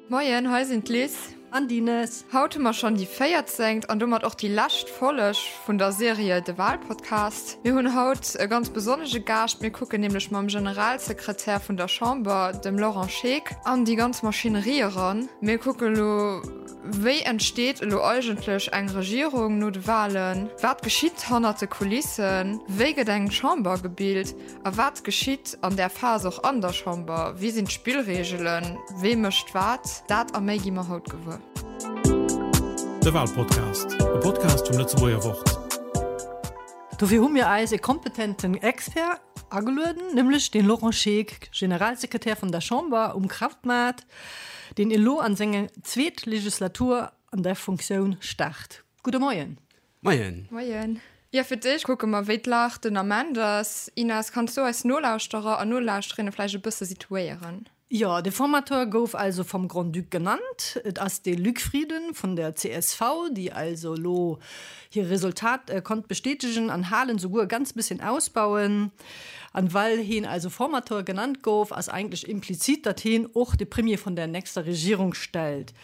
Moien, hei sinn d'Liz. An d'Ines. Haut hu mer schonn déi véierzéngt an domat och déi lescht Folleg vun der Serie De Wahlpodcast. Mir hunn haut e ganz besonnege Gaascht. Mir kucken nämlech mam Generalsekretär vun der Chamber, dem Laurent Scheeck, an déi ganz Maschinerie eran. Mir kucke lo, Wéi entsteet elo eigentlech eng Regierung no de Walen? Wat geschitt hannert de Kulissen? Wéi gëtt eng Chamber gebilt? A wat geschitt an där Phas och an der Chamber? Wéi sinn d'Spillreegelen? Wee mécht wat? Dat a méi gi mer haut gewuer. De Walpodcast, e Podcast vum Lëtzebuerger Wort. Dofir hu mir eis e kompetenten Expert agelueden, nämlech den Laurent Scheeck, Generalsekretär vun der Chamber um Krautmaart, deen elo an seng zweet Legislatur an där Funktioun start. Gudde Moien. Moien. Moien. Jo, fir d'éischt kucke mer, wéi d'Lag den Ament ass. Ines, kanns du eis Nolauschterer an Nolauschterinnen vläicht e bësse situéieren? Jo, de Formateur gouf also vom Grand-Duc genannt. Et ass de Luc Frieden vun der csv, déi also elo hir Resultat konnt bestätegen an halen, souguer e ganz bësschen ausbauen. An well heen also Formateur genannt gouf, ass eigentlech implizit, datt heen och de Premier vun der nächster Regierung stellt.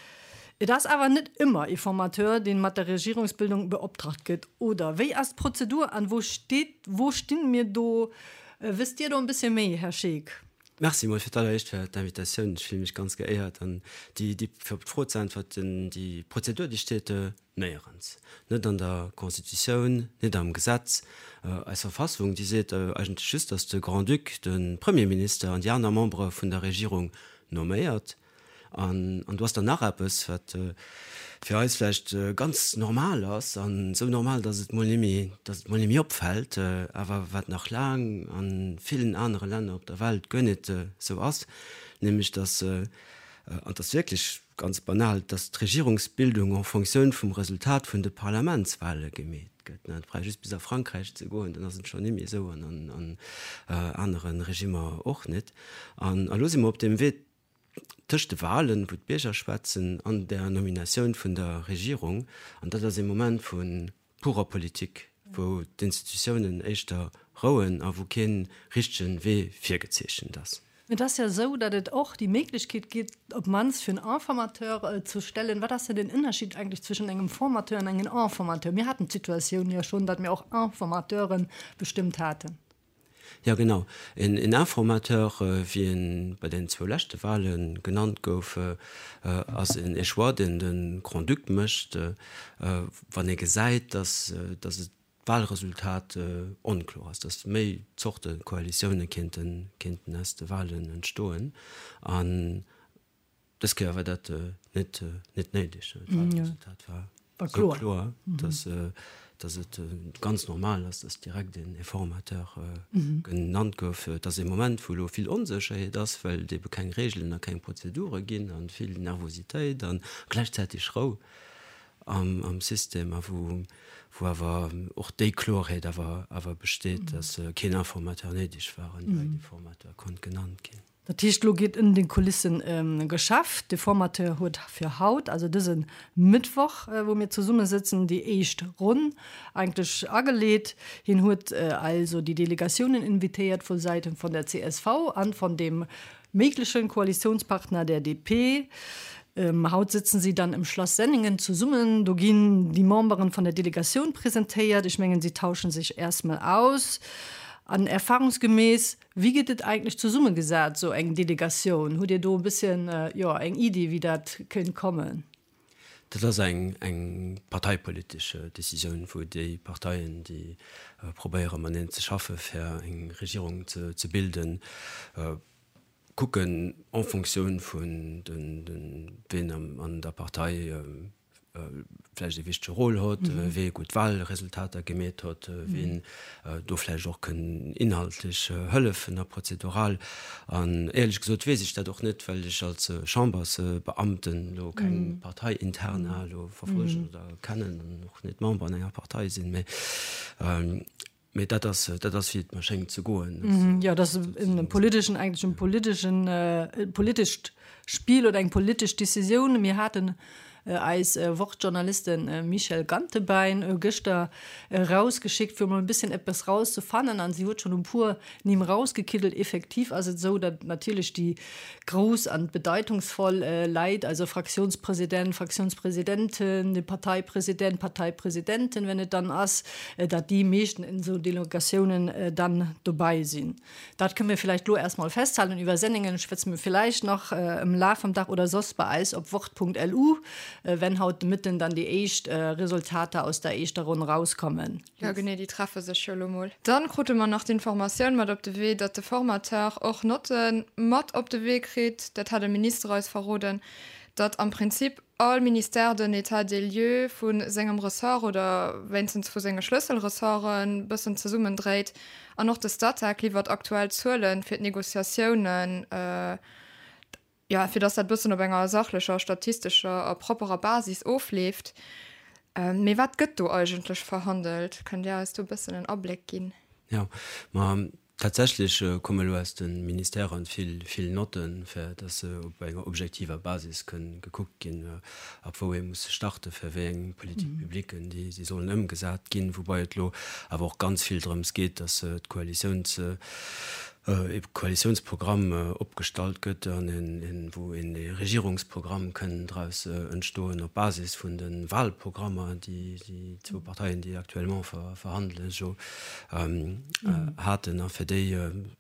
Et ass awer net ëmmer ee Formateur, deen mat der Regierungsbildung beoptragt gëtt, oder? Wéi ass d'Prozedur an wou steet, wou stinn mir do? Wësst Dir do en bësschen méi, Här Scheeck? Merci mol fir d'alleréischt fir d'Invitatioun. Ech fille mech ganz geéiert. An déi, déi, fir op d'Fro ze äntwerten, déi Prozedur, déi steet néierens. Net an der Constitutioun, net am Gesetz. Eis Verfassung, déi seet eigentlech just, datt de Grand-Duc de Premierminister an déi aner Membere vun der Regierung nomméiert. An do ass dann nach eppes, wat fir eis vläicht ganz normal ass, an esou normal, datt et mol nimmi, datt et mol nimmi opfält, awer wat nach laang a villen anere Länner op der Welt guer net esou ass, nämlech datt, an et ass wierklech ganz banal, datt d'Regierungsbildung en Fonctioun vum Resultat vun de Parlamentswahle gemeet gëtt. Et brauch just bis a Frankräich ze goen, dann ass et schonn nimmi esou, an an anere Regimmer och net. An elo si mer op deem Wee, tëscht de Wahlen, wou d'Bierger schwätzen, an der Nominatioun vun der Regierung. An dat ass ee Moment vu purer Politik, wou d'Institutiounen éischter rouen a wou kee richtege Wee virgezeechent ass. Et ass jo esou, datt et och déi Méiglechkeet gétt, op d'mannst fir en Informateur ze stellen. Wat ass denn den Ënnerschied eigentlech zwëschen engem Formateur an engem Informateur? Mir haten d'Situatioun jo schonn, datt mir och Informateuren bestëmmt haten. Jo genau, een Informateur, wéi en bei den zwou leschte Wahle genannt gouf, ass en Choix, deen de Grand-Duc mécht, wann e gesäit, datt et d'Wahlresultat onkloer ass, datt méi Zorte Koalitioune kéinten aus de Wahlen entstoen. An Dës Kéier war dat net net néideg. D'Wahlresultat war esou kloer, dass dass et ganz normal ass, dass direkt een Informateur genannt gouf. Et ass ee Moment, wou elo vill Onsécherheet ass, well et ebe keng Reegelen a keng Prozedure ginn a vill Nervositéit a gläichzäiteg Rou am am System a wou wou awer och déi Kloerheet awer awer besteet, dass keen Informateur néideg war an direkt ee Formateur konnt genannt ginn. Dat heescht, elo geet ënner den Kulissen geschafft. De Formateur huet fir haut, also dëse Mëttwoch, wou mir zesummesëtzen, déi éischt Ronn eigentlech ageleet. Hien huet also déi Delegatiounen invitéiert vu Säite vun der csv an von dem méiglechen Koalitiounspartner, der DP. Haut sëtzen si dann im Schlass Senningen zesummen. Do ginn déi Memberen von der Delegatioun presentéiert. Ech mengen, si tauschen sech erstmol aus. An erfahrungsgemäß Wéi gëtt et eigentlech zesummegesat, esou eng Delegatioun? Hutt Dir do e bësschen, jo, eng Iddi, wéi dat kéint kommen? Dat ass eng, eng parteipolitesch Décisioun, wou déi Parteien, déi probéiere mateneen ze schaffe fir eng Regierung ze, ze bilden, kucken en Fonctioun vun den, den, wien an der Partei vläicht e wichtege Rôle hott, wee gutt Wahlresultater gemeet hott, ween do vläicht och kënn inhaltlech hëllefen a prozedural. An éierlech gesot weess ech dat och net, well ech als Chambersbeamten elo keng Parteiinterna elo verfollegen oder kennen an och net Member an enger Partei sinn. Mee Mee dat ass, dat ass wéi et mer schéngt ze goen. Jo, dat ass en politeschen, eigentlech en politeschen, e politescht Spill oder eng politesch Decisioun. Mir haten. Eis Wort-Journalisten Michèle Gantebein gëschter erausgeschickt, fir emol e bësschen eppes rauszefannen an si huet schonn e puer Nimm rausgekiddelt. Effektiv ass et esou, datt natierlech déi grouss an bedeitungsvoll Leit, also Fraktiounspresident, Fraktiounspresidenten, de Parteipresident, Parteipresidenten, wenn et dann ass, datt déi meeschten in esou Delegatiounen dann dobei sinn. Dat kënne mir villäicht elo erst mol festhalen. Iwwer Senningen schwätze mir villäicht nach am Laf vum Dag oder soss bei eis op wort.lu, wenn haut de Mëtten dann déi éischt Resultater aus der éischter Ronn rauskommen. Jo genee, déi treffe sech jo elo mol. Dann krute mer nach d'Informatioun mat op de Wee, datt de Formateur och Notte mat op de Wee kritt. Dat hat e Minister eis verroden, datt am Prinzip all Ministère den État des lieux vu sengem Ressort oder wéinstens vu senge Schlësselressorten bëssen zesummendréit. An och de Statec liwwert aktuell Zuelen fir d'Negociatiounen, jo, fir datt dat bëssen op enger sachlecher, statistescher a propperer Basis ofleeft. Mee wat gëtt do eigentlech verhandelt? Kënnt Dir eis do e bëssen en Abléck ginn? Jo, ma Tatsächlech komme elo aus de Ministèren vill, vill Notten, fir dass se op enger objektiver Basis kënn gekuckt ginn, ab wou ee muss starten, fir wéi eng Politique-publiquen déi si sollen ëmgesat ginn. Woubai et elo awer och ganz vill drëms geet, dass d'Koalitiouns, ee Koalitiounsprogramm opgestallt gëtt an een, wou een ee Regierungsprogramm kënn draus entstoen op Basis vun de Wahlprogrammer, déi déi zwou Parteien, déi actuellement verhandelen, jo haten a fir déi,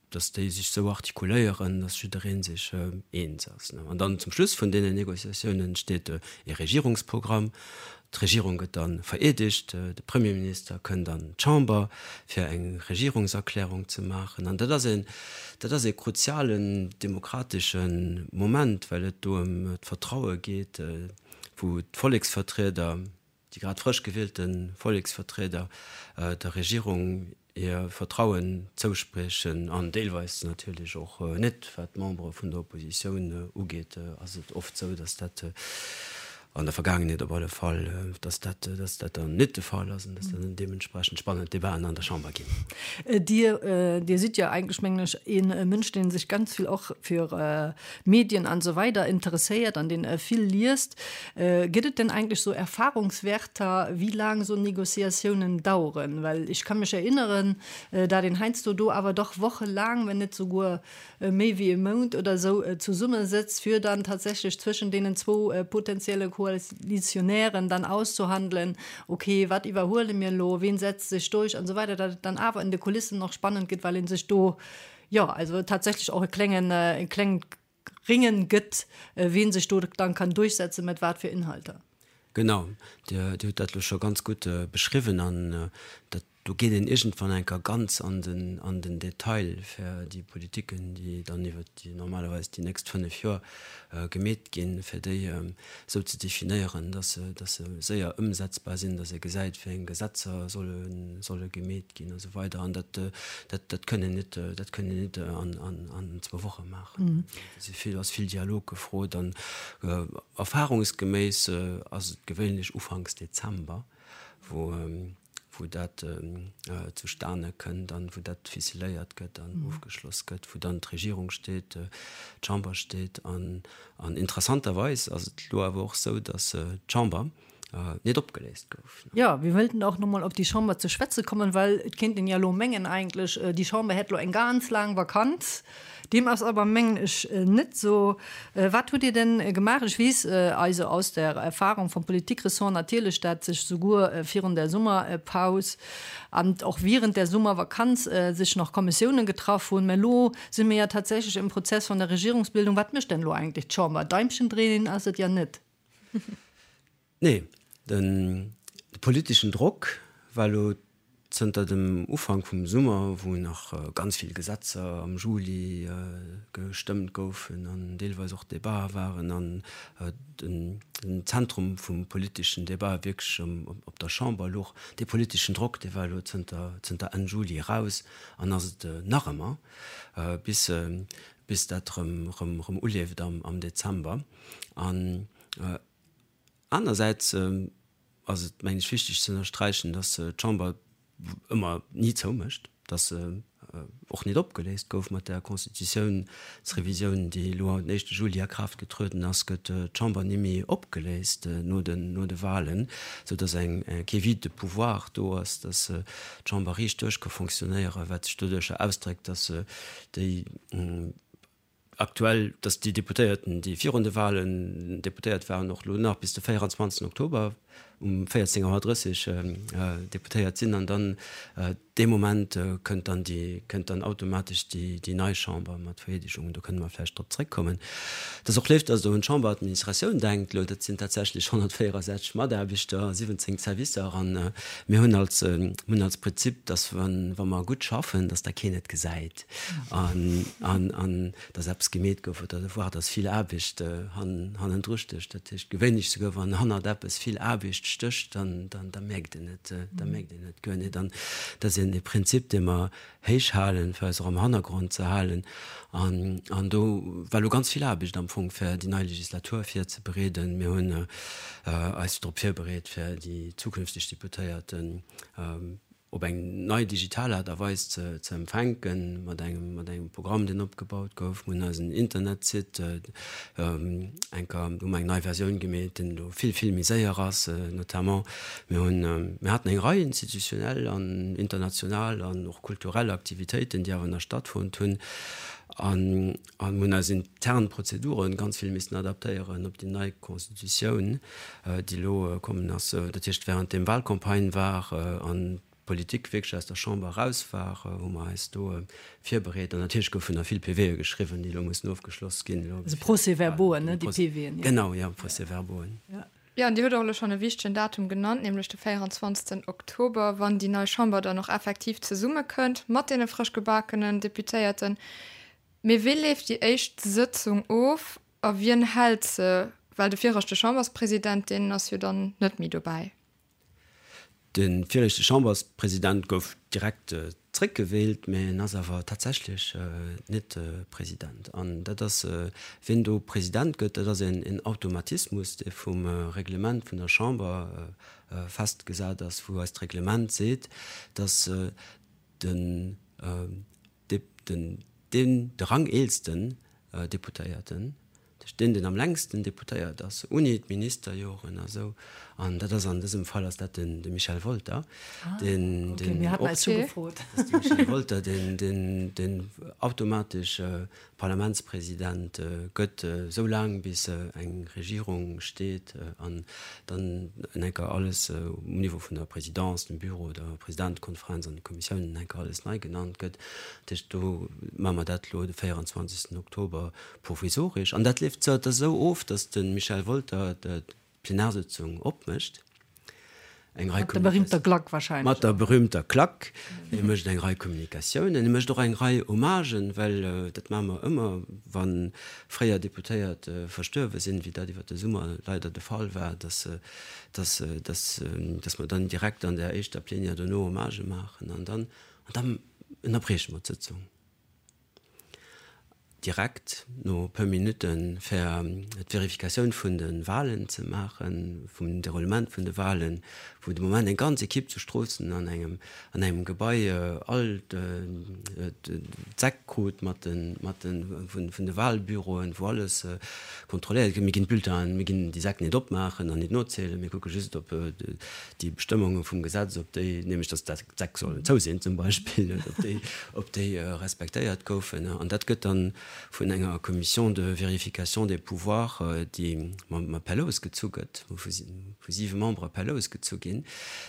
datt déi sech esou artikuléieren, datt jidderee sech eens ass. An dann zum Schluss vun deenen Négociatiounen steet e Regierungsprogramm. D'Regierung gëtt da vereedegt, de Premierminister kënnt an d'Chamber, fir eng Regierungserklärung ze maachen. An dat ass een, dat ass ee kruzialen demokratesche Moment, well et do ëm d'Vertraue geet, wou d'Volleksvertrieder, déi grad frësch gewielte Volleksvertrieder der Regierung hir Vertrauen zouspriechen an deelweis natierlech och net. Wat d'Membere vun der Oppositioun ugeet, ass et oft esou, datt dat an der Vergaangenheet op alle Fall, datt dat, datt dat dann net de Fall ass an datt dann deementsprechend spannend Debaten an der Chamber ginn. Dir, Dir sidd jo eigentlech, mengen ech, ee Mënsch, dee sech ganz vill och fir Medien an esou weider interesséiert an deen vill liest. Gëtt et denn eigentlech sou Erfahrungswärter, wéi laang sou Négociatiounen daueren? Well ech ka mech erinneren, dat een heiansdo do awer dach wochelaang, wenn net souguer méi wéi e Mount oder esou zesummesëtzt, fir dann tatsächlech zwëschen deenen zwou potenzielle Koalitionären dann auszuhandelen, okay, wat iwwerhuele mir elo, ween setzt sech durch an esou weider, dat et dann awer in de Kulissen och spannend gëtt, well ee sech do, jo, also tatsächlech och e klengen, e klengt Ringen gëtt, wien sech do dann kann durchsetzen, mat wat fir Inhalter. Genau, Dir hutt dat elo scho ganz gutt beschriwwen an dat, do geet een iergendwann eng Kéier ganz an den, an den Detail fir déi Politiken, déi dann iwwert déi normalerweis déi nächst 5 Joer gemeet ginn, fir déi esou ze definéieren, dass se, dass se séier ëmsetzbar sinn, dass ee gesäit, wéi eng Gesetzer solle, solle gemeet ginn a sou weider. An dat, dat, dat kënn een net, dat kënn een net an, an, an zwou Woche maachen. Do si vill, ass vill Dialog gefrot an erfahrungsgeméiss ass et gewéinlech ufanks Dezember, wou, wou dat zustane kënnt an wou dat ficeléiert gëtt an ofgeschloss gëtt, wou dann d'Regierung steet, d'Chamber steet. An interessanterweis ass et elo awer och esou, datt d'Chamber net opgeléist gouf. Jo, mir wëllten och nomol op déi Chamber ze schwätze kommen, well et kéint een jo elo mengen eigentlech, déi Chamber hätt elo eng ganz laang Vakanz. Deem ass awer, mengen ech, net esou. Wat hutt Dir denn gemaach? Ech weess also aus der Erfahrung vom Politikressort natierlech, dat sech souguer virun der Summerpaus an och wierend der Summervakanz sech nach Kommissiounen getraff hunn. Mä elo si mir ja tatsächlech im Prozess von der Regierungsbildung. Wat mécht denn elo eigentlech d'Chamber? Daimchen dréinen ass et ja net. Nee, de politeschen Drock war elo zënter dem Ufank vum Summer, wou nach ganz vill Gesetzer am Juli gestëmmt goufen an deelweis och Debatë waren an den Zentrum vum politeschen Debat wierklech op der Chamber louch. Dee politeschen Drock, dee war elo zënter Enn Juli eraus an ass et nach ëmmer, bis dat erëm uleeft am Dezember. An Anersäits ass et, mengen ech, wichteg ze ënnersträichen, dass d'Chamber ëmmer ni zoumécht, dass se och nit opgeléist gouf. Mat der Constitutiounsrevisioun, déi elo den éischte Juli a Kraaft getrueden ass, gëtt d'Chamber ni méi opgeléist no den, no de Wahlen, sou datt eng, kee Vide de pouvoir do ass, datt d'Chamber riicht duerch ka fonctionnéieren, wat sech doduercher ausdréckt, datt déi aktuell, datt déi Deputéierten, déi virun de Wahlen Deputéiert waren, och elo nach bis de 24 Oktober um 14 Auer 30 Deputéiert sinn an dann dee Moment kënnt dann déi, kënnt dann automatesch déi, déi nei Chamber mat Vereedegung. Do kënne mer vläicht drop zréckkommen. Et ass och léif, datt Der un d'Chamberadministratioun denkt. Elo, dat sinn tatsächlech 164 Mataarbechter, 17 Servicer an mir hunn als, hunn als Prinzip, datt wa, wa mer gutt schaffen, datt da keen et gesäit an, an, an datt eppes gemeet gouf oder voire datt vill Aarbecht hannendru stécht. Dat heescht, gewéinlech souguer wann hannert eppes vill Aarbecht stécht, dann, dann, da mierkt een et, da mierkt een et guer net. An dat ass een e Prinzip, dee mer héich halen, fir eis och am Hannergrond ze halen. An, an do war elo ganz vill Aarbecht am Fong, fir déi nei Legislatur virzebereeden. Mir hunn eis drop virbereet, fir déi zukünfteg Deputéierten op eng nei digital Aart a Weis ze empfänken, mat engem, mat engem Programm, deen opgebaut gouf. Mir hunn eisen Internetsite enker, hu mer eng nei Versioun gemeet, deen elo vill, vill méi séier ass, notamment. Mir hunn, mir haten eng Rei institutionell an international an och kulturell Aktivitéiten, déi awer nach stattfonnt hunn. An, an hunn eis intern Prozeduren ganz vill missen adaptéieren op déi nei Constitutioun. déi elo kommen ass, dat heescht während deem Wahlcampagne war an d'Politik wierklech aus der Chamber eraus war, hu mer eis do virbereet. An natierlech goufen nach vill PVe geschriwwen, déi elo mussen ofgeschloss ginn. Also Procès-verbauen, ne, déi PVen, jo. Genau, jo, Procès-verbauen. Jo, an Dir hutt och elo schonn e wichtegen Datum genannt, nämlech de 24. Oktober, wann déi nei Chamber dann och effektiv zesummekënnt mat deene frësch gebakenen Deputéierten. Mee wéi leeft déi éischt Sëtzung of A wien hält se? Well de viregte Chamberspresident, deen ass jo dann net méi dobäi. De viregte Chamberspresident gouf direkt zréckgewielt, mä en ass awer tatsächlech net President. An dat ass, wien do President gëtt, dat ass een Automatismus, dee vum Reglement vun der Chamber festgesat ass, wou eist Reglement seet, datt den den, deen, de rangeelsten Deputéierten, dat heescht deen, deen am längsten Deputéiert ass, ouni d'Ministerjoren a sou, an dat ass an dësem Fall ass dat den, de Michel Wolter, deen, deen och, dat ass de Michel Wolter, deen, deen, deen automatesch Parlamentspresident gëtt, esou laang bis eng Regierung steet an dann en enker alles um Niveau vun der Présidence, dem Büro, der Presidentekonferenz an de Kommissiounen en enker alles nei genannt gëtt. Dat heescht, do maache mer dat elo de 24. Oktober provisoresch. An dat leeft da esou of, datt de Michel Wolter Plenarsëtzung opmécht. Eng Rei Mat der berühmter Klack wahrscheinlech. Mat der berühmter Klack. E mécht eng Rei Kommunikatiounen, e mécht och eng Rei Hommagen, well dat maache mer ëmmer, wa fréier Deputéiert verstuerwe sinn, wéi dat iwwer de Summer leider de Fall war, dass, dass, dass, dass mer dann direkt an där éischter Plenière dono Hommagë maachen an dann, an dann ënnerbrieche mer d'Sëtzung. Direkt no puer Minutte fir d'Verifikatioun vun de Wahlen ze maachen, vum Deroulement vun de Wahlen, wou de Moment eng ganz Ekipp zu Stroossen an engem an engem Gebai all d'Säck krut mat de mat de vun de Wahlbüroen, wou alles kontrolléiert gëtt. Mir ginn d'Bulletinen, mir ginn déi Säck net opmaachen an net nozielen, mir kucke just op déi Bestëmmunge vum Gesetz, ob déi, nämlech datt d'Säck sollen zou sinn zum Beispill, ob déi, ob déi respektéiert goufen. An dat gëtt dann vun enger Commission de vérification des pouvoirs, déi mam per Lous gezu gëtt, vu siwe Membere per Lous gezu ginn,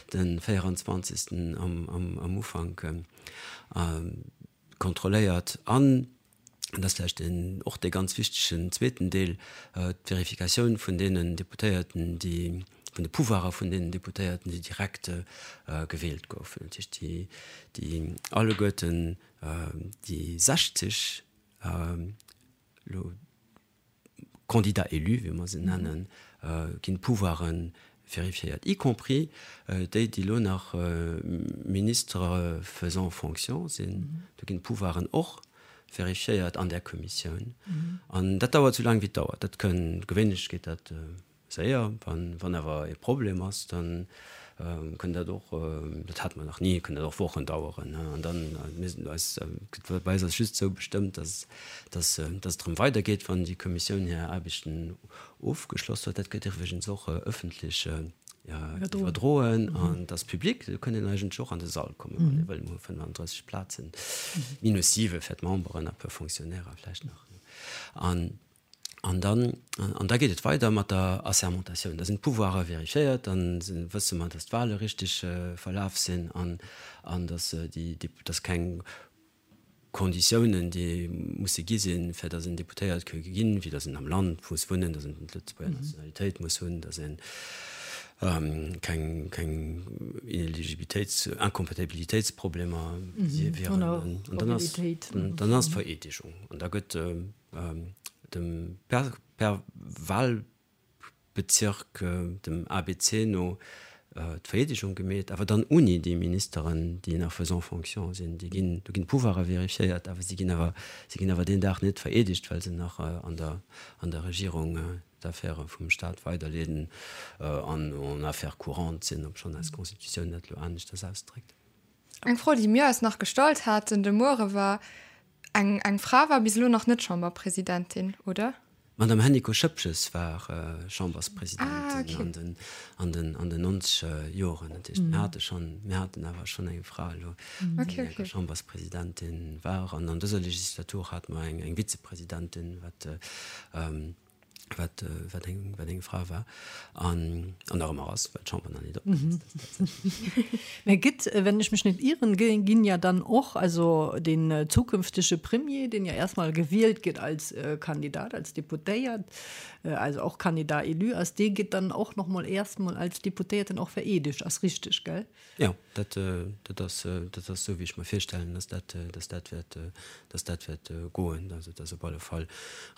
de 24. Am Ufank kontrolléiert an, dat ass vläicht deen, och dee ganz wichtegen zweeten Deel, d'Verifikatioun vun deenen Deputéierten, déi, vun de Pouvoirer vun deenen Deputéierten, déi direkt gewielt goufen, dat heescht déi, déi alleguerten déi 60 elo Candidats élus, wéi mer se nennen, ginn d'Pouvoiren vérifiéiert, y compris déi, déi elo nach Ministres faisant fonction sinn. Do ginn d'Pouvoiren och vérifiéiert an där Kommissioun. An dat dauert esou laang, wéi et dauert. Dat kënn, gewéinlech geet dat séier. Wann awer e Problem ass, dann. Kënn dat och, dat hate mer nach ni, kënn dat och Wochen daueren. An dann, mir sinn eis, bei eis ass just esou bestëmmt, dass, dass, dass et erëm weidergeet, wann déi Kommissioun hir Aarbechten ofgeschloss huet. Dat gëtt iwwregens och ëffentlech iwwerdroen an et ass public. Do kënn een eigentlech och an de Sall kommen, wann ee wëll. Mir hu 35 Plazen, minus siwe fir d'Memberen a puer Fonctionnairer vläicht nach. An An dann, an da geet et weider mat der Assermentatioun. Da sinn d'Pouvoirer vérifiéiert, da wësse mer, datt d'Wahle richteg verlaf sinn an, an datt déi, datt keng Konditiounen, déi musse gi sinn, fir datt een Deputéiert ka ginn, wéi datt een am Land muss wunnen, datt een d'Lëtzebuerger Nationalitéit muss hunn, datt ee keng, keng Ineligibilitéits-, Incompatibilitéitsproblemer wieren. An dann ass, dann ass d'Vereedegung. An da gëtt Dem per Wahlbezirk, dem ABC no, d'Vereedegung gemeet, awer dann uni déi Ministeren, déi nach faisant fonction sinn. Déi ginn, do ginn d'Pouvoiren vérifiéiert, awer si ginn awer, si ginn awer deen Dag net vereedegt, well se nach an der, an der Regierung d'Affäre vum Stat weiderleeden an en affaires courantes sinn, obschonn eis Constitutioun dat elo aneschters ausdréckt. Eng Fro, déi mir eis nach gestallt haten de Muere war, Eng eng Fra war bis elo nach net Chamberpresidentin, oder? D'Madame Hennicot-Schoepges war Chamberspresidentin an den an den an den nonzeger Joren. Dat heescht, mir hate schonn, mir haten awer schonn eng Fra elo, déi eng Chamberspresidentin war. An an dëser Legislatur hate mer eng eng Vizepresidentin, wat wat, wat eng, wat eng Fra war an, an nach ëmmer ass, well d'Chamber nach net opgeléist ass tatsächlech. Mä gëtt, wenn ech mech net ieren, ginn ja dann och, also den zukünftege Premier, deen ja erstmal gewielt gëtt als Kandidat, als Deputéiert, also och Candidat élu ass, dee gëtt dann och nach mol erstmol als Deputéierten och vereedegt, ass richteg, gell? Jo, dat, dat ass, dat ass esou, wéi ech mer virstellen, dass dat, dass dat wäert, dass dat wäert goen. Also et ass op alle Fall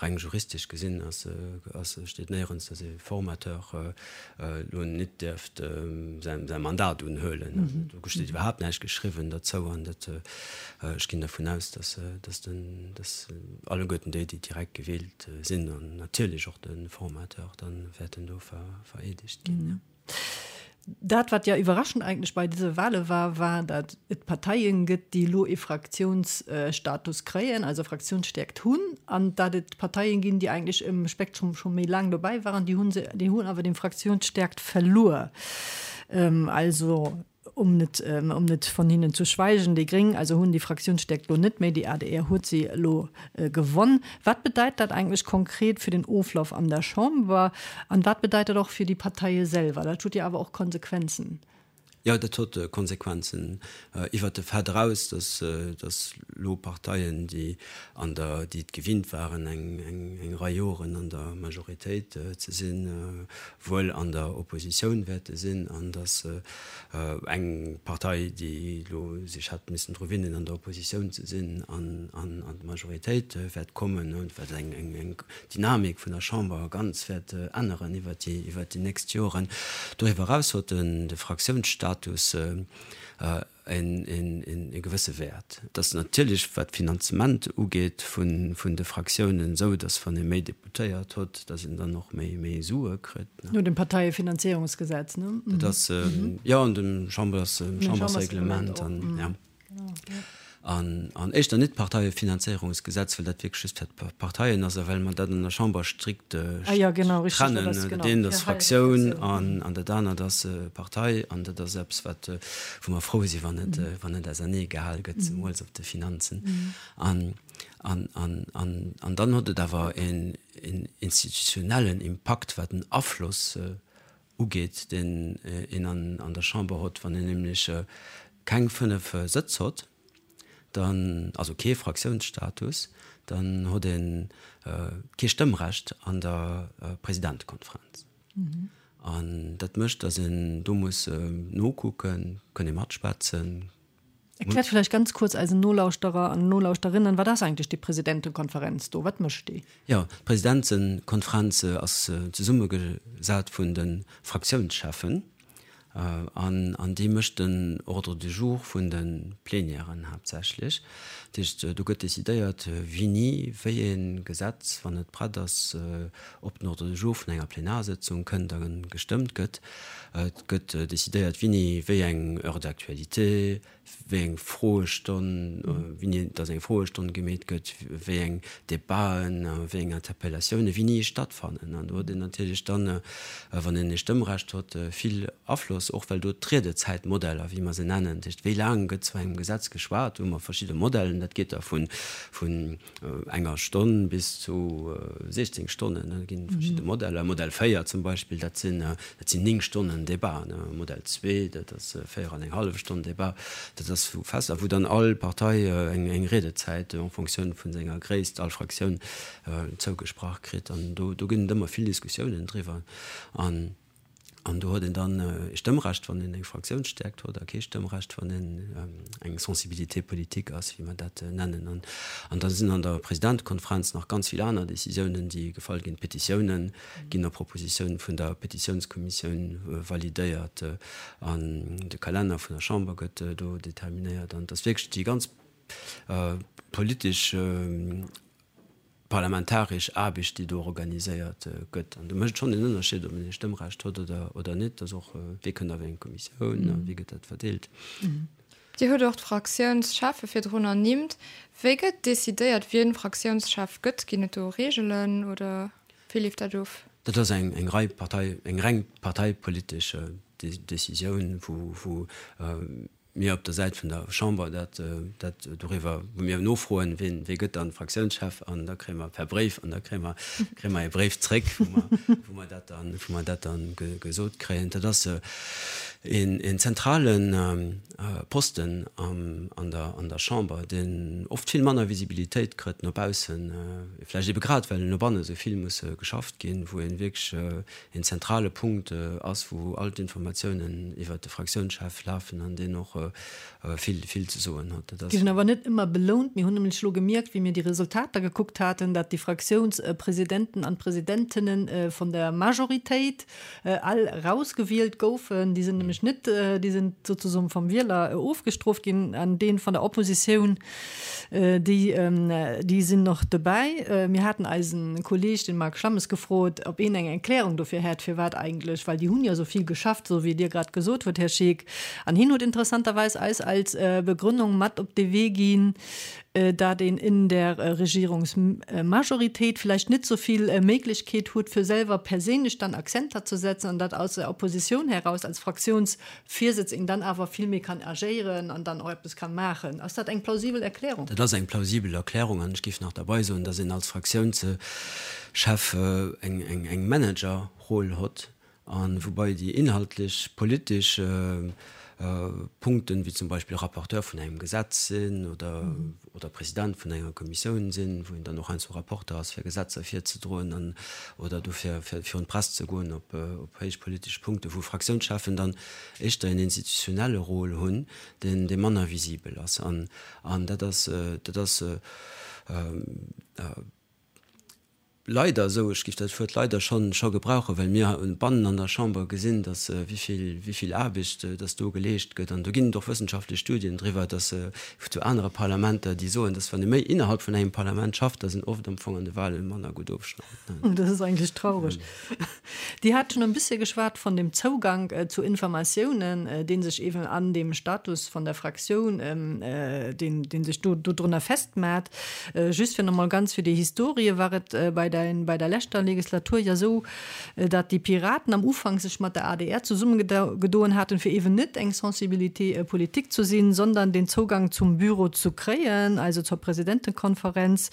reng juristesch gesinn ass, ass, steet néierens, dass ee Formateur elo net dierft säi, säi Mandat unhuelen. Do steet iwwerhaapt näischt geschriwwen derzou an dat, ech ginn dervun aus, dass, dass den, dass alleguerten déi, déi direkt gewielt sinn an natierlech och de Formateur dann wäerten do vereedegt ginn, jo. Dat, wat jo iwwerraschend eigentlech bei dëse Wahle war, war, datt et Parteien gëtt, déi elo ee Fraktiounsstatus kréien, also Fraktiounsstäerkt hunn, an datt et Parteien ginn, déi eigentlech um Spektrum scho méi laang dobäi waren, déi hu se, déi hunn awer déi Fraktiounsstäerkt verluer. Also Um net, um net von hinnen zu schweigen, déi Gréng also hunn déi Fraktiounsstäerkt elo net méi, déi adr huet se elo gewonn. Wat bedeit dat eigentlech konkret fir den Oflauf an der Chamber an wat bedeit dat och fir déi Parteie selwer? Dat huet jo awer och Konsequenzen. Jo, dat huet Konsequenzen iwwert de Fait eraus, datt, datt elo Parteien, déi an der, déi et gewinnt waren eng, eng, eng Rei Joren an der Majoritéit ze sinn, wuel an der Oppositioun wäerte sinn an datt eng Partei, déi elo sech hätt missen dru winnen, an der Oppositioun ze sinn, an d'Majoritéit wäert kommen, wat eng Dynamik vun der Chamber ganz wäert änneren iwwert déi nächst Joren. Doriwwer eraus huet de Fraktiounsstatus e gewësse Wäert. Et ass natierlech, wat d'Finanzement ugeet vun de Fraktiounen, esou, datt wann ee méi Deputéiert huet, datt een dann och méi Sue kritt. No dem Parteiefinanzierungsgesetz, ne? Dat ass, jo, an dem Chambers, Chambersreglement an, jo. An éischter net d'Parteiefinanzéierungsgesetz, well dat wierklech just fir d'Parteien ass a well mer dat an der Chamber strikt trennen. Dat eent ass Fraktioun an dat anert ass Partei. An dat ass eppes, wat, wou mer frou sinn, wann et, wann et auserneegehal gëtt, zemools op de Finanzen. An, an, an, an dann huet et awer een institutionellen Impakt, wat den Afloss ugeet, deen een an der Chamber hott, wann een nämlech keng 5 Sëtz hott, dann, also kee Fraktiounsstatus, dann hott ee kee Stëmmrecht an der Presidentekonferenz. An dat mécht, datt een do muss nokucken, kënn ee matschwätzen. Erkläert vläicht ganz kuerz eisen Nolauschterer an Nolauschterinnen, wat ass eigentlech déi Presidentekonferenz do? Wat mécht déi? Jo, d'Presidentekonferenz ass zesummegesat vun de Fraktiounscheffen. An, an déi mécht den Ordre du jour vun de Plenièren haaptsächlech. Dat heescht, do gëtt decidéiert, wéini wéi ee Gesetz, wann et prett ass, op den Ordre du jour vun enger Plenarsëtzung kënnt a gestëmmt gëtt. Et gëtt decidéiert, wéini wéi eng Heure d'actualité, wéi eng Froestonn, wéini dass eng Froestonn gemeet gëtt, wéi eng Debaten, wéi eng Interpellatiounen wéini stattfannen. An do huet een natierlech dann, wann een ee Stëmmrecht huet, vill Afloss, och well do d'Riedezäitmodeller, wéi mer se nennen, dat heescht, wéi laang gëtt zu engem Gesetz geschwat, do hu mer verschidde Modellen, dat geet da vun enger Stonn bis zu 16 Stonnen, da ginn et verschidde Modeller. Modell 4 zum Beispill, dat sinn, dat sinn 9 Stonnen Debat. Modell 2, dat ass 4 an eng hallef Stonn Debat. Dat ass wou fest a wou dann all Partei eng, eng Riedezäit en Fonctioun vun senger Gréisst, all Fraktioun zougesprach kritt. An do, do ginn et ëmmer vill Diskussiounen driwwer. An An do huet een dann e Stëmmrecht, wann een eng Fraktiounsstäerkt huet, a kee Stëmmrecht, wann een eng Sensibilité politique ass, wéi mer dat nennen. An da sinn an der Presidentekonferenz nach ganz vill aner Décisiounen, déi gefall ginn. D'Petitiounen ginn op Propositioun vun der Petitiounskommissioun validéiert an de Kalenner vun der Chamber gëtt do determinéiert. An et ass wierklech déi ganz politesch Parlamentaresch Aarbecht, déi do organiséiert gëtt. An do mécht et schonn en Ënnerscheed, ob een e Stëmmrecht huet oder net. Dass och, wie kënnt a wéi eng Kommissioun a wéi gëtt dat verdeelt. Dir hutt och d'Fraktiounscheffe virdrun ernimmt. Wéi gëtt decidéiert, wien Fraktiounschef gëtt? Ginn et do Reegelen oder wéi leeft dat of? Dat ass eng rei Partei, eng reng parteipolitesch Decisioun, wou mir op der Säit vun der Chamber dat, dat doriwwer, wou mir nofroen, wien, wie gëtt dann Fraktiounschef, an da kréie mer per Bréif, an da kréie mer, kréie mer e Bréif zréck, wou mer, wou mer dat dann, wou mer dat dann gesot kréien. Dat ass een, een zentrale Posten am, an der, an der Chamber, deen oft vill manner Visibilitéit kritt no baussen, vläicht ebe grad well no banne sou vill muss geschafft ginn, wou ee wierklech een zentrale Punkt ass, wou all d'Informatiounen iwwert de Fraktiounschef lafen an deen och vill, vill ze soen huet. Dat ass. Ginn awer net ëmmer belount. Mir hunn nämlech elo gemierkt, wéi mir déi Resultater gekuckt haten, dat déi Fraktiounspresidenten an Presidentinnen vun der Majoritéit all erausgewielt goufen. Déi sinn nämlech net, déi sinn sozusoen vum Wieler ofgestrooft ginn an dee vun der Oppositioun, Déi, déi sinn och dobäi. Mir haten eisen Kolleeg, den Marc Schlammes, gefrot, ob een eng Erklärung dofir hätt, firwat eigentlech, well déi hunn jo esou vill geschafft, esou wéi Dir grad gesot hutt, Här Scheeck. An hien huet interessanterweis eis als Begründung mat op de Wee ginn, dat een in der Regierungsmajoritéit vläicht net esou vill Méiglechkeet huet, fir selwer perséinlech dann Akzenter ze setzen, an dat aus der Opposition heraus als Fraktions Virsëtz een dann awer vill méi kann agéieren an dann och eppes kann maachen. Ass dat eng plausibel Erklärung? Dat ass eng plausibel Erklärung an ech géif nach derbei soen, dass een als Fraktiounschef eng Managerroll hott a woubai déi inhaltlech politesch Punkten, wéi zum Beispill Rapporteur vun engem Gesetz sinn oder oder President vun enger Kommissioun sinn, wou een dann och heiansdo Rapporter ass fir Gesetzer virzedroen an oder dofir fir virun d'Press ze goen op op héich politesch Punkten, wou Fraktiounscheffen dann éischter een institutionelle Rôle hunn, deen dee manner visibel ass. An an dat ass dat ass Leider esou, ech géif dat Wuert leider schonn scho gebrauchen, well mir bannen an der Chamber gesinn, datt wéi vill Aarbecht datt do geleescht gëtt. An do ginn et och wëssenschaftlech Studien driwwer, datt zu anere Parlamenter, déi soen, datt wann ee méi innerhalb vun engem Parlament schafft, datt een oft am Fong an de Wahlen manner gutt ofschneit. Dat ass eigentlech traureg. Dir hat schonn e bëssche geschwat von dem Zougank zu Informatiounen, dee sech eeben an dem Status von der Fraktioun, deen, dee sech do dodrunner festmat. Just fir nach mol ganz fir déi Historie, war et bei der, bei der leschter Legislatur jo esou, datt déi Piraten am Ufank sech mat der adr zesummegedoen haten, fir eeben net eng Sensibilité politique zu sinn, sondern den Zougang zum Büro zu kréien, also zur Presidentekonferenz.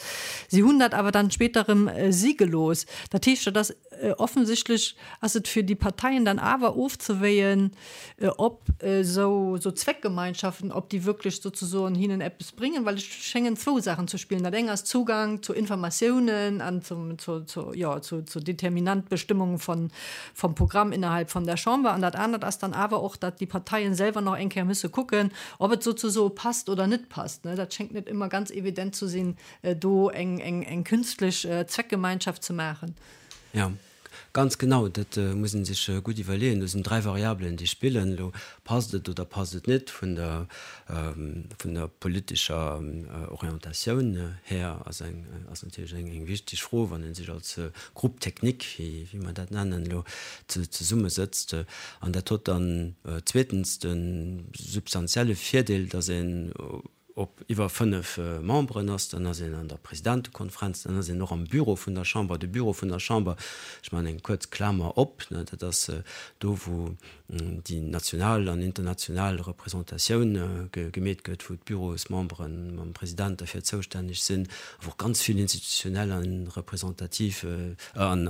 Si hunn dat awer dann später erëm si gelooss. Dat heescht, dat ass offensichtlech ass et fir déi Parteien dann awer ofzewéien, ob esou Zweckgemeinschaften, ob déi wierklech sozesoen hinnen eppes bréngen, well et schéngen zwou Saachen ze spillen. Dat eng ass Zugang zu Informatiounen an zum, zu, zu, jo, zu, zu Determinantbestimmungen von, vom Programm innerhalb von der Chamber. An dat anert ass dann awer och, datt déi Parteien selwer nach eng Kéier müsse kucken, ob et sozesoe passt oder net passt. Dat schéngt net ëmmer ganz evident ze sinn, do eng, eng, eng künstlech Zweckgemeinschaft ze maachen. Jo. Ganz genau, dat muss ee sech gutt iwwerleeën. Do sinn 3 Variabelen, déi spillen. Elo passt et oder passt et net vun der, vun der politescher Orientatioun här ass eng, ass natierlech eng, eng wichteg Fro, wann ee sech als Groupe technique, wéi, wéi mer dat nennen elo, zesummesëtzt. An dat huet dann zweetens de substantielle Virdeel, datt een op iwwer 5 Memberen ass, dann ass een an der Presidentekonferenz, dann ass een och am Büro vun der Chamber. De Büro vun der Chamber, ech maachen eng kuerz Klamer op, dat ass do wou déi national an international Representatioun gemeet gëtt, wou d'Bürosmembere mam President derfir zoustänneg sinn, a wou och ganz vill institutionell a representativ an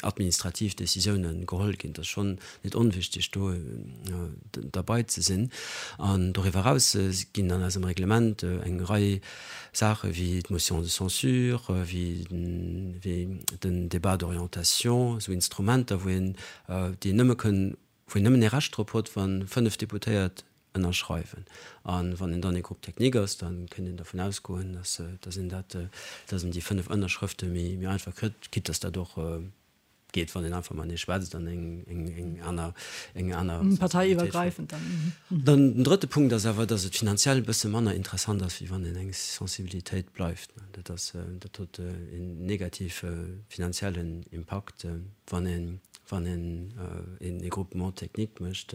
administrativ Décisiounen geholl ginn. Dat ass schonn net onwichtig do derbei ze sinn. An doriwwer eraus ginn an eisem Reglement eng Rei Saache wéi d'Motion de censure, wéi den Débat d'orientation, esou Instrumenter, wou een, déi een nëmme kënn, wou een nëmmen ee Recht drop huet, wa 5 Deputéiert ënnerschreiwen. A wann een dann ee Groupe technique ass, da kënnt een dervun ausgoen, dass een dat, dass een déi 5 Ënnerschrëfte méi einfach kritt, quitte dass dat och geet, wann een einfach matenee schwätzt an eng, eng, eng aner, eng aner Parteiiwwergräifend dann. Dann den drëtte Punkt ass awer, dass et finanziell e bësse manner interessant ass, wéi wann een eng Sensibilitéit bleift. Dat ass, dat huet een negative finanziellen Impakt, wann een, wann een een Regroupement technique mécht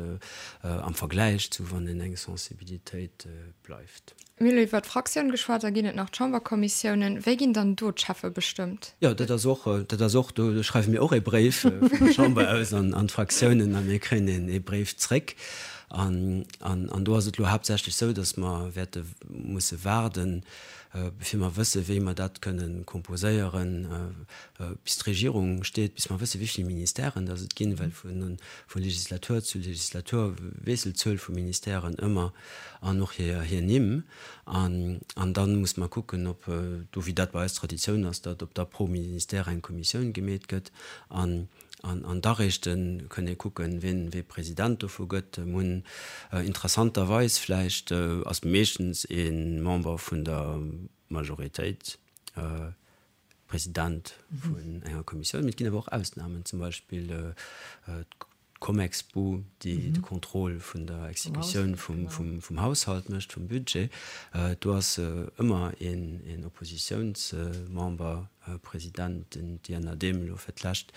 am Vergläich zu wann een eng Sensibilitéit bleift. Mir hu lo iwwert d'Fraktioun geschwat, da ginn et nach d'Chamberkommissiounen. Wéi ginn dann do d'Cheffe bestëmmt? Jo, dat ass och, dat ass och, do schreiwe mir och ee Bréif vun der Chamber aus an d'Fraktiounen a mir kréien ee Bréif zréck. An, an do ass et elo haaptsächlech esou, datt mer wäerte musse waarden, bevir mer wësse wéi mer dat kënnen composéieren, bis d'Regierung steet, bis mer wësse wéi vill Ministèren datt et ginn, well vu Legislatur zu Legislatur wiesselt d'Zuel vu Ministèren ëmmer. an och hir Nimm. An da muss mer kucken, ob do, wéi dat bei eis Traditioun ass, datt ob da pro Ministère eng Kommissioun gemeet gëtt. An da réischt kënn ee kucken, wien wee President dovu gëtt. Mir hunn interessanterweis vläicht ass meeschtens ee Member vun der Majoritéit President vun enger Kommissioun. Mee et ginn awer och Ausnamen, zum Beispill d'Comexbu, déi de Contrôle vun der Exekutioun vum Haushalt mécht, vum Budget. Do ass ëmmer een Oppositiounsmember President, den Diana Dehm elo fir d'lescht,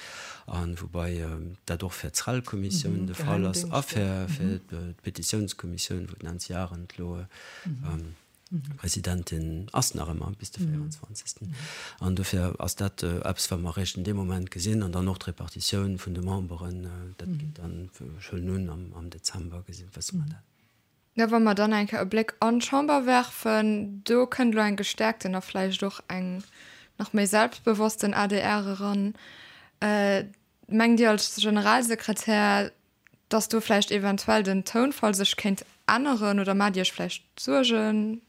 a woubai dat och fir d'SREL-Kommissioun de Fall ass a fir d'Petitiounskommissioun, wou d'Nancy Arendt elo Presidentin ass nach ëmmer bis de 24. An dofir ass dat eppes, wat mer eréischt an deem Moment gesinn. An dann och d'Repartitioun vun de Memberen, dat geet dann, ech huelen un, am Dezember gesinn, wësse mer dat. Jo, wa mer dann eng Kéier e Bléck an d'Chamber werfen, do kënnt elo eng gestäerkten a vläicht och eng nach méi selbstbewossten adr eran. Mengt Dir als Generalsekretär, dass do vläicht eventuell den Tounfall sech kéint änneren oder maacht Dir Iech vläicht Suergen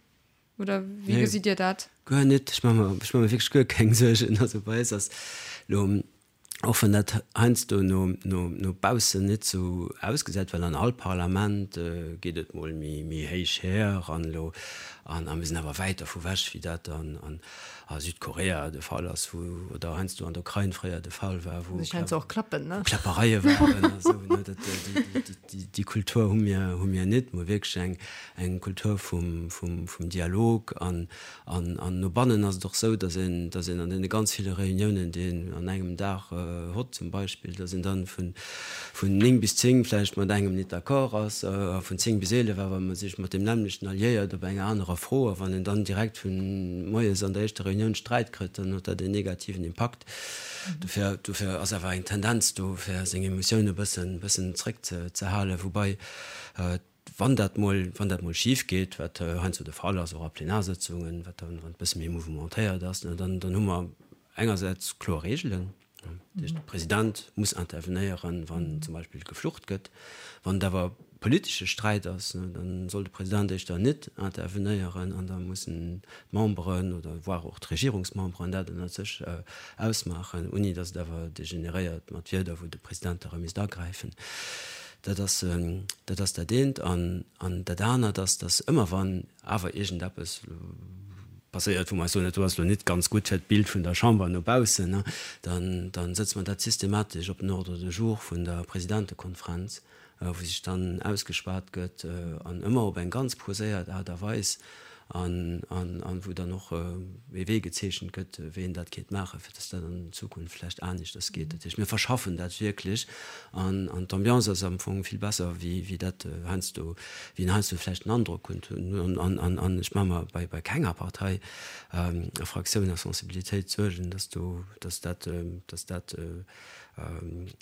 oder wéi gesitt Dir dat? Guer net, ech maache mer, ech maache mer wierklech guer keng Suergen. Also bei eis ass elo, och wann dat heiansdo no, no, no baussen net sou ausgesäit, well an all Parlament geet et mol méi, méi héich her an elo, an a mir sinn awer wäit dervu wech wéi dat an, an a Südkorea de Fall ass, wou, oder heiansdo an der Ukrain fréier de Fall war, wou Kläppereie waren a sou, ne, dat, déi, déi Kultur hu mir, hu mir net. Mir hu wierklech eng, eng Kultur vum, vum, vum Dialog an, an, an no bannen ass et och sou, datt een, datt een an deene ganz ville Reuniounen, déi een an engem Dag hott zum Beispill, datt een dann vun, vun 9 bis 10 vläicht mat engem nit d'accord ass a vun 10 bis 11 awer sech mat deem nämmlechten alliéiert op enger anerer Fro. A wann een dann direkt vu moies an der éischter Reunioun Sträit kritt, dann huet dat een negativen Impakt. Dofir, dofir ass awer eng Tendenz do, fir seng Emotioune bëssen, bëssen zréckzehalen. Woubai, wann dat mol, wann dat mol schif geet, wat heiansdo de Fall ass, och a Plenarsëtzungen, wat dann, wann et bësse méi mouvementéiert ass, dann, dann hu mer engersäits kloer Reegelen, Dat heescht, de President muss intervenéieren, wann zum Beispill geflucht gëtt. Wann et awer politesche Sträit ass, da soll de President éischter net intervenéieren an da mussen d'Memberen oder voire och d'Regierungsmemberen dat ënnert sech ausmaachen, ouni datt et awer degeneréiert mat Wierder, wou de President da erëm misst agräifen. Dat ass dat ass dat eent. An dat anert ass, datt ëmmer wann awer iergendeppes. passéiert, wou mer eis soen, dat do ass elo nit ganz gutt fir d'Bild vun der Chamber no baussen, dann, dann sëtze mer dat systematesch op den Ordre du jour vun der Presidentekonferenz, wou sech dann ausgeschwat gëtt an ëmmer op eng ganz poséiert Aart a Weis an, an, an wou dann och ee Wee gezeechent gëtt, wéi een dat kéint maachen, fir dass dat an Zukunft vläicht aneschters geet. Dat heescht, mir verschaffen dat wierklech an, an d'Ambiance ass am Fong vill besser, wéi, wéi dat heiansdo, wéi een heiansdo vläicht den Androck huet. An, an, an ech maache mer bei, bei kenger Partei a Fraktioun a Sensibilitéit Suergen, dass do, dass dat, dass dat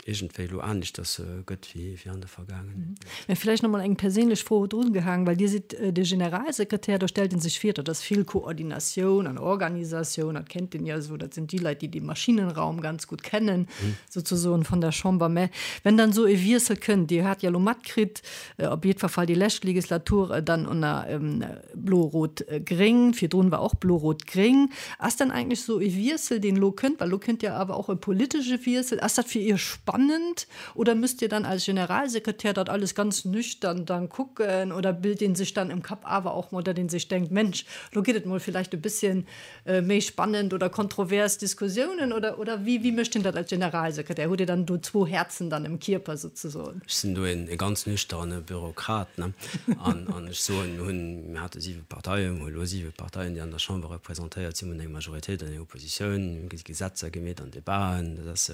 iergendwéi elo aneschters gëtt wéi an der Vergaangenheet. Mä vläicht nach mol eng perséinlech Fro drungehaang, well Dir sidd de Generalsekretär, do stellt ee sech vir, dat ass vill Koordinatioun an Organisatioun, dat kennt een jo esou, dat sinn déi Leit, déi de Maschinenraum ganz gutt kennen, souzesoen, vun der Chamber. Mä wenn dann esou e Wiessel kënnt, Dir hat jo elo matkritt, op jiddwer Fall déi lescht Legislatur dann ënner Blo-Rot-Gréng, virdrun war och Blo-Rot-Gréng. Ass dann eigentlech esou e Wiessel, deen elo kënnt, well elo kënnt jo awer och e politesche Wiessel, ass dat fir Iech spannend oder müsst Dir dann als Generalsekretär dat alles ganz nüchtern dann kucken oder bilt een sech dann im Kapp awer och mol, datt ee sech denkt, Mensch, elo geet et mol vielleicht e bësschen méi spannend oder kontrovers Diskussiounen oder, oder wéi, wéi mécht een dat als Generalsekretär? Hutt Dir dann do zwou Häerzen dann im Kierper souzesoen? Ech sinn do een ganz nüchterne Bürokrat, ne? An, an ech soen, mir hunn, mir hate siwe Parteien, mir hu elo siwe Parteien, déi an der Chamber representéiert sinn, mir hunn eng Majoritéit an eng Oppositioun, mir hu Gesetzer gemeet an Debaten, dat ass,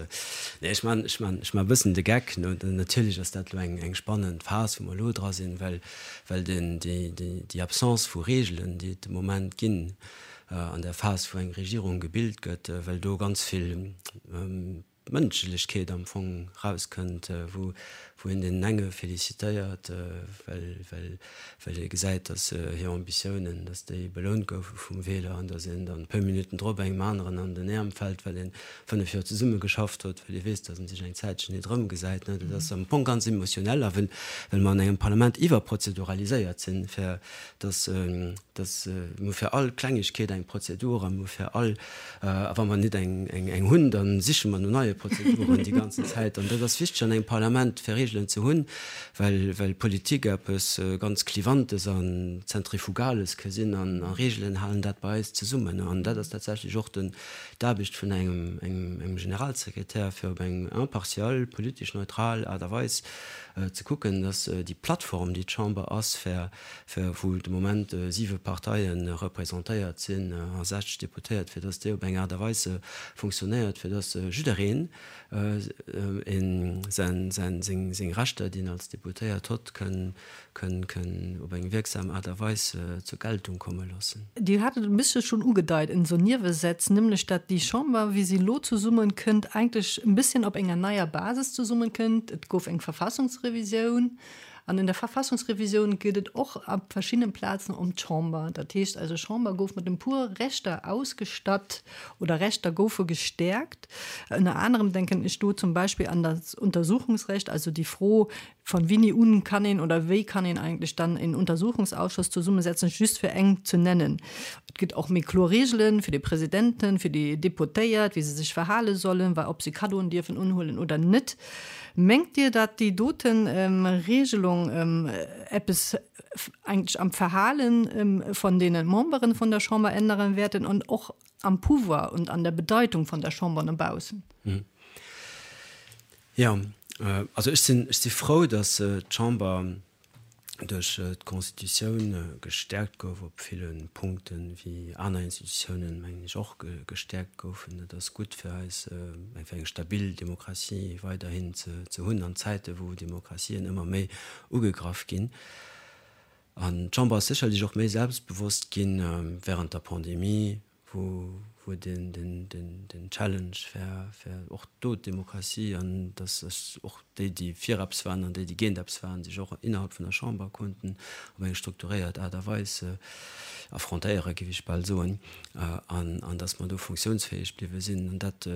nee, ech man, ech man, ech man e bëssen de Geck, ne? Natierlech ass dat elo eng, eng spannend Phas, wou mer elo dra sinn, well, well den, déi, déi, déi Absence vu Regeln, déi et de Moment ginn, an der Phas, wou eng Regierung gebilt gëtt, well do ganz vill Mënschlechkeet am Fong rauskënnt, wou een deenen enge felicitéiert, well, well, well ee gesäit, datt hir Ambitiounen, datt déi belount goufe vum Wieler an datt een dann e puer Minutten drop engem aneren an den Äerm fält, well ee 5 Joer zesumme geschafft huet, well ee weess, datt en sech eng Zäitchen nit erëmgesäit. Dat ass am Fong ganz emotionell a well, well mer an engem Parlament iwwerprozeduraliséiert sinn, fir dass dass mir hu fir all Klengegkeet eng Prozedur a mir hu fir all, a wa mer nit eng eng hunn, da siche mer no neie Prozeduren déi ganzen Zäit. An dat ass wichteg an engem Parlament, fir Regeln ze hunn, well well Politik eppes ganz Klivantes an Zentrifugales ka sinn an a Regeln halen dat bei eis zesummen. An dat ass tatsächlech och den d'Aarbecht vun engem engem engem Generalsekretär, fir op eng impartial, politesch neutral Aart a Weis ze kucken, dass déi Plattform, déi d'Chamber ass, fir, fir, wou de Moment siwe Parteie representéiert sinn a 60 Deputéiert, fir dass déi op eng Aart a Weis funktionéiert, fir dass jiddereen säin, säin, seng, seng Rechter, déi en als Deputéiert hott, kënn, kënn, kënn op eng wierksam Aart a Weis zur Geltung komme loossen. Dir hat et e bëssche schonn ugedeit en esou Niewesätz, nämlech dat déi Chamber, wéi se elo zesummenkënnt, eigentlech e bësschen op enger neier Basis zesummenkënnt. Et gouf eng Verfassungsrevisioun an in der Verfassungsrevisioun geet et och op verschiddenen Plazen ëm d'Chamber. Dat heescht also, Chamber gouf mat e puer Rechter ausgestatt oder Rechter goufe gestäerkt. Ënner anerem denken ech do zum Beispill an das Untersuchungsrecht, also déi Fro, Von wini un kann een oder wéi kann een eigentlech dann en Untersuchungsausschuss zesummesetzen, just fir eng ze nennen. Et gëtt och méi kloer Reegelen fir de Presidenten, fir déi Deputéiert, wéi se sech verhale sollen, wa ob se Kaddoen dierfen unhuelen oder net. Mengt Dir, datt déi dote Reegelung eppes eigentlech am Verhale von deene Memberen von der Chamber änneren wäerten an och am Pouvoir und an der Bedeitung von der Chamber no baussen? Jo, also ech sinn, ech si frou, datt d'Chamber duerch d'Constitutioun gestäerkt gouf op ville Punkten, wéi aner Institutiounen, mengen ech, och gestäerkt goufen. Dat ass gutt fir eis, fir eng stabil Demokratie weiderhin ze hunn an Zäite wou Demokratien ëmmer méi ugegraff ginn. An d'Chamber ass sécherlech och méi selbstbewosst ginn während der Pandemie, wou wou den den den den Challenge fir fir och do d'Demokratie an dass sech och déi déi fir eppes waren an déi déi géint eppes waren sech och innerhalb vun der Chamber konnten op eng strukturéiert Aart a Weis affrontéiere géif ech bal soen an an dass mer do funktiounsfäeg bliwwe sinn an dat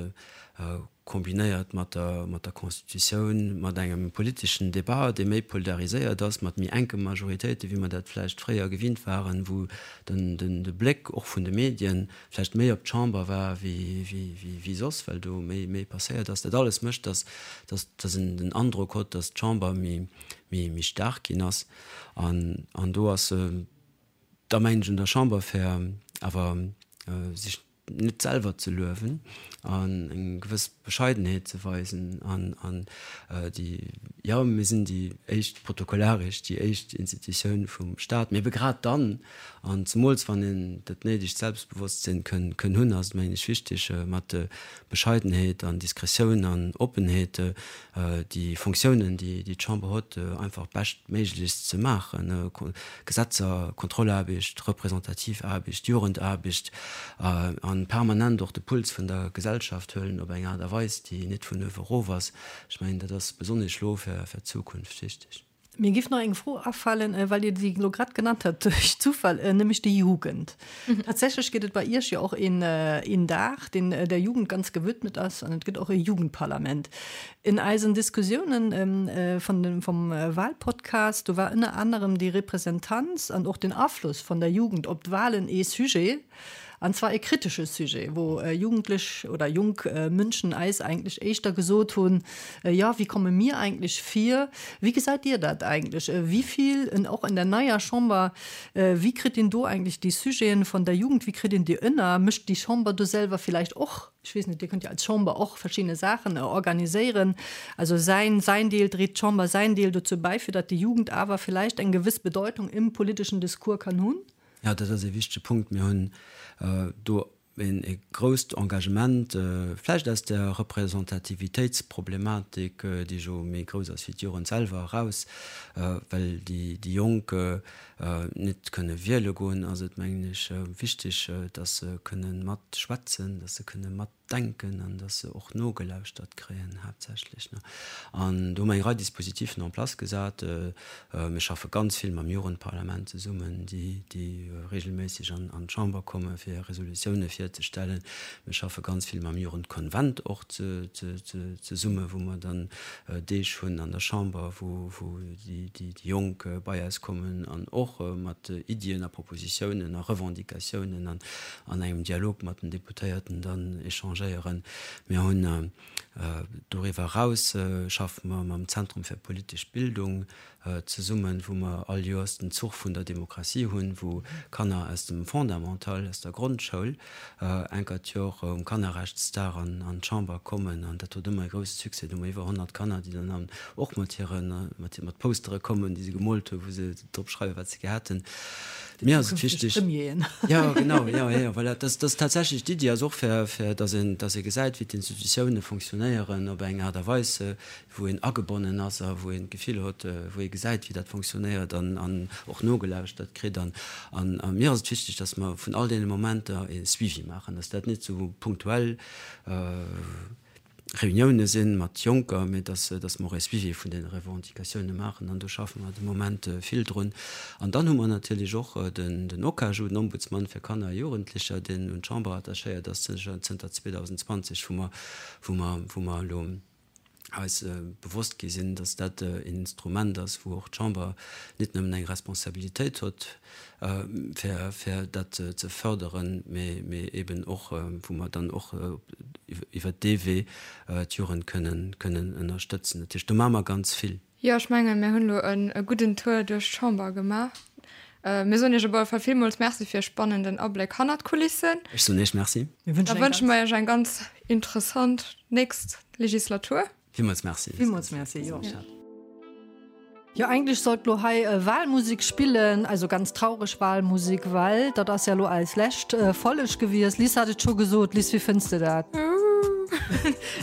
kombinéiert mat der, mat der Constitutioun, mat engem politeschen Débat, dee méi polariséiert ass, mat méi enke Majoritéiten, wéi mer dat vläicht fréier gewinnt waren, wou den, den, de Bléck och vun de Medien vläicht méi op d'Chamber war wéi, wéi, wéi, wéi soss, well do méi, méi passéiert ass. Dat alles mécht, dass, dass, dass een den Androck hott, dass d'Chamber méi, méi, méi staark ginn ass. An, an do ass, da mengen ech un der Chamber fir. Awer sech net selwer ze luewen an eng gewëss Bescheidenheet ze weisen an an déi, jo, mir sinn déi éischt protokollaresch, déi éischt Institutioun vum Staat, mee ebe grad dann, an zemools wann een dat néidegt Selbstbewosstsinn kënn kënn hunn, ass et mengen ech wichteg mat Bescheidenheet an Diskretioun an Oppenheet déi Fonctiounen, déi d'Chamber huet, einfach beschtméiglechst ze maachen, Gesetzer, Kontrollaarbecht, representativ Aarbecht, Jugendaarbecht, a permanent och de Puls vun der Gesellschaft huelen op eng Aart a Weis, déi net vun uewe erof ass. Ech mengen, dat ass besonnesch elo fir d'Zukunft wichteg. Mir giff nach eng Fro afalen, well Dir déi elo grad genannt hat duerch Zufall, nämlech déi Jugend. Tatsächlech gëtt et bei Iech jo och een een Dag, deen der Jugend ganz gewidmet ass, an et gëtt och e Jugendparlament. In eisen Diskussiounen vun dem vum Wahlpodcast, do war ënner anerem déi Representanz an och den Afloss von der Jugend op d'Wahlen ee Sujet. An zwar e kritesche Sujet, wou Jugendlech oder jonk Mënschen eis eigentlech éischter gesot hunn, Jo, wie komme mir eigentlech vir? Wéi gesäit Dir dat eigentlech? Wéi vill, och an der neier Chamber, wéi kritt een do eigentlech déi Sujeten von der Jugend, wéi kritt een déi ënner? Mécht déi Chamber do selwer villäicht och, ech weess net, Dir kënnt jo als Chamber och verschidde Saachen organiséieren, also säin, säin Deel, dréit d'Chamber säin Deel dozou bäi, fir datt déi Jugend awer villäicht eng gewëss Bedeutung im politischen Discours kann hunn? Jo, dat ass ee wichtege Punkt. Mir hunn do e grousst Engagement, vläicht aus der Representativitéitsproblematik, déi jo méi grouss ass wéi d'Jugend selwer, eraus, well déi Jonk net kënne wiele goen, ass et, mengen ech, wichteg, datt se kënne matschwätzen, datt se kënne mat. Denken an dass se och nogelauschtert kréien haaptsächlech. An do hu mer eng Rei Dispositifen en place gesat. Mir schaffe ganz vill mam Jugendparlament zesummen, déi déi regelméisseg an d'Chamber komme fir Resolutioune virzestellen. Mir schaffe ganz vill mam Jugendkonvent och zesumme wou mer dann Deeg hunn an der Chamber, wou wou déi déi Jonk bei eis kommen an och mat Iddien a Propositiounen a Revendicatiounen an an engem Dialog mat den Deputéierten dann échangéieren. Mir hunn doriwwer eraus schaffe mer mam Zentrum fir politesch Bildung zesummen, wou mer all Joers den Zuch vun der Demokratie hunn, wou Kanner aus dem Fondamental, aus der Grondschoul enker d'Jor um Kannerrechtsdag an d'Chamber kommen. An dat huet ëmmer e grousse Succès. Do hu mer iwwer 100 Kanner, déi dann och mat hire mat Postere kommen, déi se gemoolt hunn, wou se drop schreiwen, wat se gär hätten. Mir ass et wichteg. Premieren. Jo, genau, jo, jo, voilà. Dat ass tatsächlech d'Iddi ass och, fir, fir dass een, dass ee gesäit, wéi d'Institutioune fonctionnéieren op eng Aart a Weis, wou een agebonnen ass a wou een d'Gefill huet, wou ee gesäit, wéi dat fonctionnéiert an, an och nogelauschtert kritt. An, an a mir ass et wichteg, dass mer vun all deene Momenter e Suivi maachen, dass dat net sou punktuell, Reunioune sinn mat Jonker, mee dass dass mer och e Suivi vun deene Revendicatioune maachen an do schaffe mer de Moment vill drun. An dann hu mer natierlech och den den OKAJU, den Ombudsmann fir Kanner a Jugendlecher, deen un d'Chamber attachéiert ass zënter 2020, wou mer wou mer wou mer elo eis bewosst gi sinn, dass dat en Instrument ass, wou och d'Chamber net nëmmen eng Responsabilitéit huet, fir, fir dat ze förderen, mee, mee eben och, wou mer dann och iwwert dee Wee d'Jugend kënnen, kënnen ënnerstëtzen. Dat heescht, do maache mer ganz vill. Jo, ech mengen, mir hunn elo e gudden Tour duerch d'Chamber gemaach. Mir soen Iech op alle Fall villmools Merci fir e spannenden Abléck hannert d'Kulissen. Ech soen Iech Merci. Da wënsche mer Iech eng ganz interessant nächst Legislatur. Villmools Merci. Villmools Merci, jo. Jo, eigentlech sollt lo hei Wahlmusik spillen, also ganz traureg Wahlmusik, well dat ass ja lo eis lescht Folleg gewiescht. Liz hat et scho gesot. Liz, wéi fënns de dat?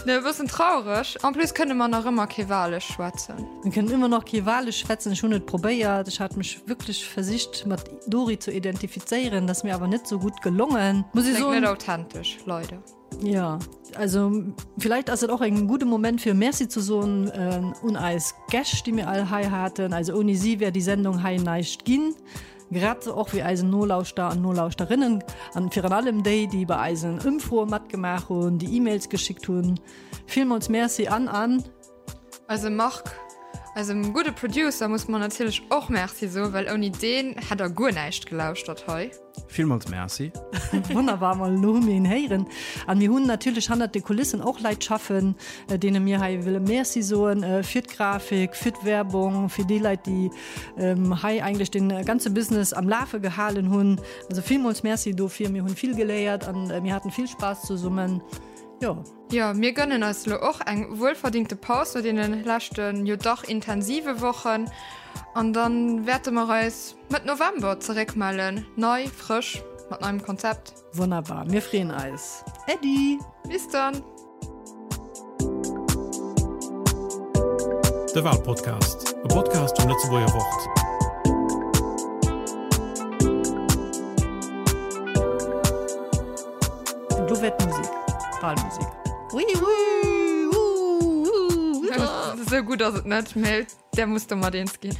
Ne, e bëssen traureg. En plus kënne mer nach ëmmer kee Walesch schwätzen. Mir kënnen ëmmer nach kee Walesch schwätzen. Ech hunn et probéiert. Ech hat mech wierklech versicht mat Dori ze identifizéieren, dat ass mir awer net sou gutt gelongen, muss ech soen. Kléngt net authentesch, leider. Ja, also vielleicht ass et och en gudde Moment fir Merci ze soen äh, un eis Gäscht, déi mir all hei haten. Also ouni si wär déi Sendung hei näischt ginn. Grad sou och wéi eisen Nolauschter an Nolauschterinnen an virun allem déi, déi bei eisen Ëmfroe matgemaach hunn, déi E-Mails geschickt hunn. Villmools Merci an an. Eise Marc. Eisem gudde Producer musse mer natierlech och Merci soen, well ouni deen hätt der guer näischt gelauschtert hei. Villmools Merci. Wonnerbar, mol elo hu mir een héieren. An mir hunn natierlech hannert de Kulissen och Leit schaffen, deene mir hei wëlle Merci soen, fir d'Grafik, fir d'Werbung, fir déi Leit, déi hei eigentlech de ganze Business am Lafe gehalen hunn. Also villmools Merci dofir. Mir hunn vill geléiert an mir haten vill Spaass zesummen. Jo. Jo, mir gönnen eis elo och eng wuelverdingte Paus no deene leschten, jo dach intensive Wochen. An dann wäerte mer eis Mëtt November zeréckmellen, nei, frësch, mat neiem Konzept. Wonnerbar, mir freeën eis. Äddi! Bis dann! De Walpodcast, e Podcast vum Lëtzebuerger Wort. Do wär d'Musek, d'Walmusek. Esou gutt ass et net, mee där muss domat eens ginn.